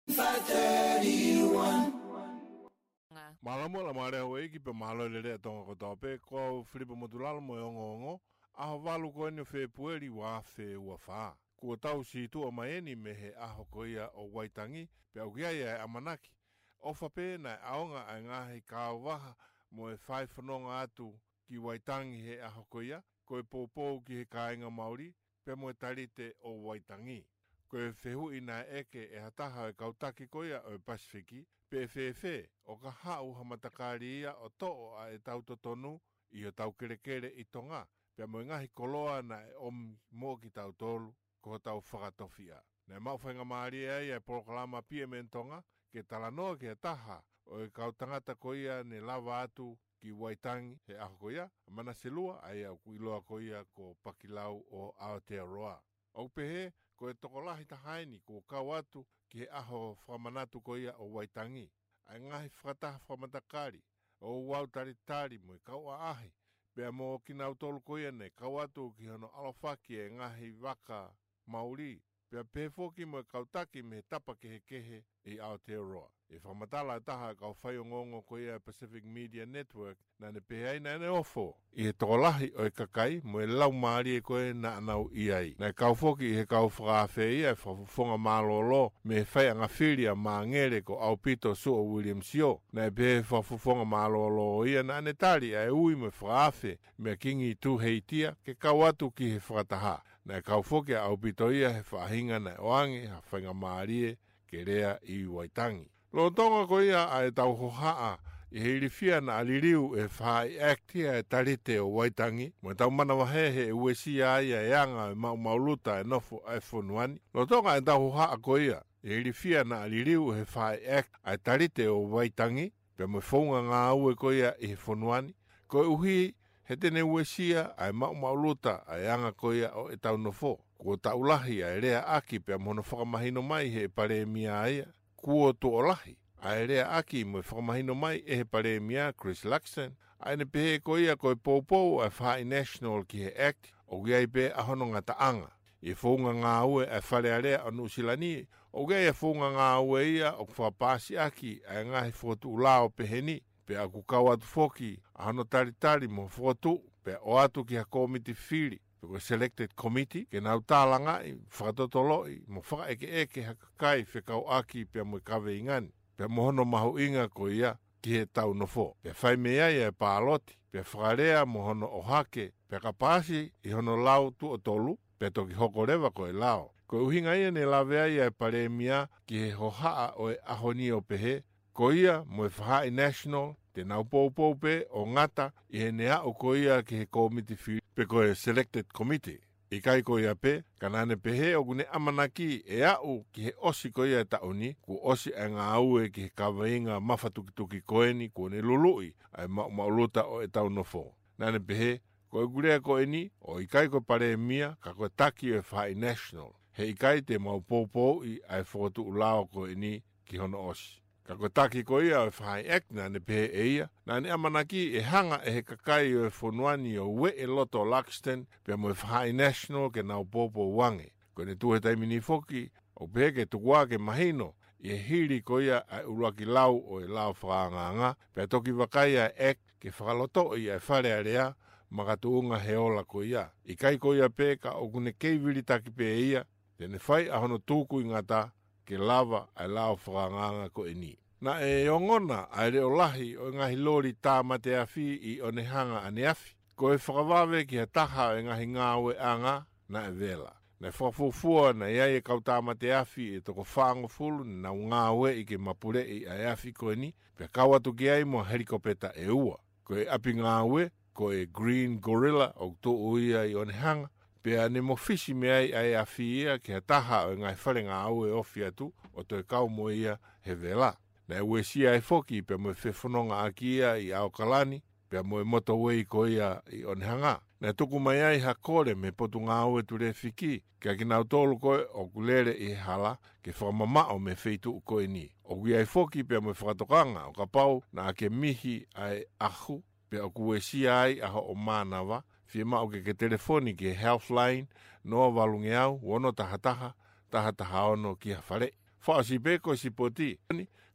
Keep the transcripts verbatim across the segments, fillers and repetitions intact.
five thirty-one. Mālō muʻa Laumālie Houʻeiki pea mālō e lelei ʻa Tonga kotoa pē, ko au Filipa Motulalo mo e ongoongo, ʻaho valu ko eni ʻo Fēpueli ua afe ua fā. Kuo tau situʻa mai eni mei he ʻaho ko ia ʻo Waitangi, pea ʻoku ʻi ai ʻa e ʻamanaki. ʻOfa pē naʻe ʻaonga ʻa e ngaahi kaavaha mo e fai fononga atu ki Waitangi he ʻaho ko ia, ko e poupou ki he kāinga Mauli, pea mo e talite ʻo Waitangi. Ko e fehuʻi naʻe ʻeke ʻe ha taha ʻo e kau taki ko ia ʻo e Pasifiki, pe ʻe fēfē, ʻo ka haʻu ha matakali ia ʻo toʻo ʻa ʻetau totonu ʻi hotau kelekele ʻi Tonga, pea mo e ngaahi koloa naʻe ʻomi mo kitautolu, ko hotau fakatofiʻa. Naʻe maʻu faingamālie ai ʻa e polokalama P M N Tonga, ke talanoa ki ha taha ʻo e kau tangata ko ia ne lava atu ki Waitangi he ʻaho ko ia, ʻa Manase Lua, ʻa ia ʻoku ʻiloa ko ia ko Pakilau ʻo Aotearoa. ʻOku pehē, ko e tokolahi taha eni kuo kau atu ki he ʻaho fakamanatu ko ia ʻo Waitangi, ʻa e ngaahi fakataha fakamatakali, ʻo e ouau talitali mo e kau ʻaʻahi, pea mo kinautolu ko ia ne kau atu ki hono ʻalofaki e ngaahi vaka Mauli, pea pehē foki mo e kau taki mei he tapa kehekehe ʻi Aotearoa. ʻI he fakamatala ʻa e taha ʻo e kau faiongoongo ko ia ʻa e Pacific Media Network, naʻa ne pehē ai naʻa ne ofo ʻi he tokolahi ʻo e kakai mo e laumālie ko ē naʻa nau ʻi ai. Naʻe kau foki ʻi he kau fakaafe ia e fakafofonga mālōlō mei he faiʻanga fili ʻa Māngere ko ʻAupito Suʻa Williams Sio. Naʻe pehē ʻe he fakafofonga mālōlō ia naʻa ne tali ʻa e ui mo e fakaafe mei he Kingi Tūheitia ke kau atu ki he fakataha. Naʻe kau foki ʻa ʻAupito ia he faʻahinga naʻe ʻoange ha faingamālie ke lea ʻi Waitangi. Lolotonga ko ia ʻa ʻetau hohaʻa ʻi he ilifia naʻa liliu ʻe he Faʻahi ʻAct ia e talite ʻo Waitangi, mo ʻetau manavahē he ʻe uesia ai ʻa e anga ʻo e maʻumaʻuluta e nofo ʻa e fonua ni. Lolotonga ʻetau hohaʻa ko ia ʻi he ilifia naʻa liliu ʻe he Faʻahi ʻAct ʻa e talite ʻo Waitangi, pea mo e founga ngāue ko ia ʻi he fonua ni, koeʻuhi he te ne uesia ʻa e maʻumaʻuluta ʻa e anga ko ia ʻo ʻetau nofo. Kuo taʻu lahi ʻa e leaʻaki pea mo hono fakamahino mai ʻe he Palēmia ia. Kuo tuʻo lahi ʻa e leaʻaki mo e fakamahino mai ʻe he Palēmia Chris Luxon ʻa ʻene pehē ko ia ko e poupou ʻa e Faʻahi National ki he Act, ʻoku ʻi ai pē ʻa hono ngataʻanga. ʻI he founga ngāue ʻa e Fale Alea ʻo Nuʻusila ni, ʻoku ʻi ai e founga ngāue ia ʻoku fakapaasi ʻaki ʻa e ngaahi fokotuʻu lao pehē ni, pea ʻoku kau atu foki ʻa hono talitali mo e fokotuʻu, pea ʻoatu ki ha kōmiti fili, pe ko e selected committee, ke nau tālangaʻi, fakatotoloʻi, mo fakaʻekeʻeke ha kakai fekauʻaki pea mo e kaveinga ni, pea mo hono mahuʻinga ko ia ki heʻetau nofo. Pea fai mei ai ʻa e pāloti, pea fakalea mo hono ʻohake, pea ka paasi ʻi hono lau tuʻo tolu, pea toki hoko leva ko e lao. Ko e ʻuhinga ia ne lave ai ʻa e Palēmia ki he hohaʻa ʻo e ʻaho ni ʻo pehē, ko ia mo e Faʻahi National, te nau poupou pē ʻo ngata ʻi heʻene aʻu ko ia ki he kōmiti fili, pe ko e selected committee. ʻIkai ko ia pē, ka naʻa ne pehē ʻoku ne ʻamanaki ʻe aʻu ki he ʻosi ko ia e taʻu ni, kuo ʻosi ʻa e ngāue ki he kaveinga mafatukituki ko eni kuo ne luluʻi ʻa e maʻumaʻuluta ʻo ʻetau nofo. Naʻa ne pehē, ko ʻeku lea ko eni, ʻoku ʻikai ko e Palēmia, ka ko e taki ʻo e Faʻahi National. He ʻikai te mau poupouʻi ʻa e fokotuʻu lao ko eni ki hono ʻosi. Ka ko e taki ko ia ʻo e Faʻahi Act naʻa ne pehē ʻe ia, naʻa ne ʻamanaki ʻe hanga ʻe he kakai ʻo e fonua ni ʻo ueʻi e loto ʻo Luxon, pea mo e Faʻahi National ke nau poupou ange. Ko ʻene tuʻu he taimi ni foki, ʻoku pehē ke tuku ā ke mahino, ʻi he hili ko ia ʻa e ʻuluaki lau ʻo e lao fakaangaanga, pea toki vakai ʻa e Act ke fakalotoʻi ʻa e Fale Alea, makatuʻunga he ola ko ia. ʻIkai ko ia pē ka ʻoku ne kei vilitaki pē ia, te ne fai ʻa hono tukuingata ke lava ʻa e lao fakaangaanga ko eni. Naʻe ongona ʻa e leʻo lahi ʻo e ngaahi loli tāmate afi ʻi ʻOnehanga ʻaneafi. Ko e fakavave ki ha taha ʻo e ngaahi ngāueʻanga naʻe vela. Naʻe fakafuofua naʻe ʻi ai e kau tāmate afi ʻe toko fāngofulu ne nau ngāueʻi ke mapuleʻi ʻa e afi ko eni, pea kau atu ki ai mo e helikopeta ʻe ua. Ko e ʻapi ngāue, ko e Green Gorilla ʻoku tuʻu ia ʻi ʻOnehanga, pea ne mofisi mei ai ʻa e afi ia ki ha taha ʻo e ngaahi fale ngāue ofi atu ʻo toe kau mo ia he vela. Naʻe uesia ai foki pea mo e fefonongaʻaki ia ʻi ʻAokalani, pea mo e motorway ko ia ʻi ʻOnehanga. Naʻe tuku mai ai ha kole mei he Potungāue Tulefiki, kia kinautolu ko ē ʻoku lele ʻi he hala ke fakamamaʻo mei he feituʻu ko eni. ʻOku ʻi ai foki pea mo e fakatokanga ʻo kapau naʻa ke mihi ʻa e ʻahu, pea ʻoku uesia ai ʻa hoʻo mānava, fiemaʻu ke ke telefoni ki he Healthline, noa valungeau, ono taha taha, taha taha ono ki ha faleʻi. Fakaʻosi pē ko e sipoti,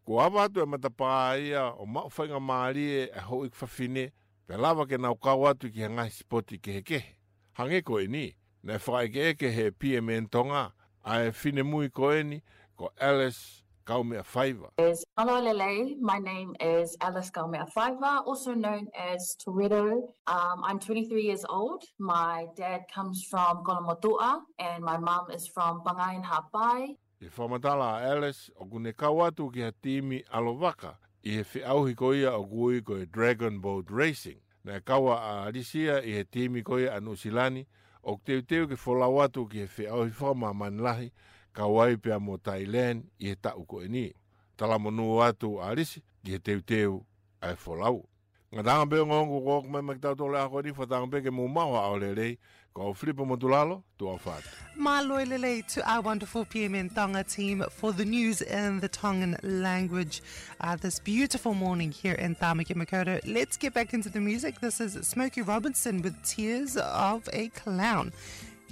kuo ava atu e matapā ia ʻo maʻu faingamālie e houʻeiki fafine, pea lava ke nau kau atu ki he ngaahi sipoti kehekehe. Hangē ko eni, naʻe fakaʻekeʻeke ʻe he P M N Tonga ʻa e finemui ko eni, ko Alice Kaumeʻafaiva. Is, hello, Lele. My name is Alice Kaumeʻafaiva, also known as Toretto. Um, I'm twenty-three years old. My dad comes from Kolomotuʻa, and my mum is from Pangai in Haʻapai. ʻI he fakamatala ʻa Alice, ʻoku ne kau atu ki ha timi ʻalovaka ʻi he feʻauhi ko ia ʻoku ui ko e Dragon Boat Racing. Naʻe kau ʻa Alice ia ʻi he timi ko ia ʻa Nuʻusila ni, ʻoku teuteu ke folau atu ki he feʻauhi fakamāmani lahi, kau ai pea mo Thailand ʻi he taʻu ko eni. Talamonū atu ʻa Alice ki he teuteu ʻa e folau. Ngataʻanga pē ongoongo ko ʻoku mai mai ki tautolu ʻa ko eni, fakatanga pē ke mou maʻu ha ʻaho lelei, ko au Filipa Motulalo, tuʻa ʻofa atu. Mālō e lelei to our wonderful P M N Tonga team for the news in the Tongan language, uh, this beautiful morning here in Tāmaki Makaurau. Let's get back into the music. This is Smokey Robinson with Tears of a Clown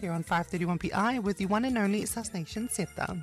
here on five thirty-one P I with the one and only Sus Nation Zeta.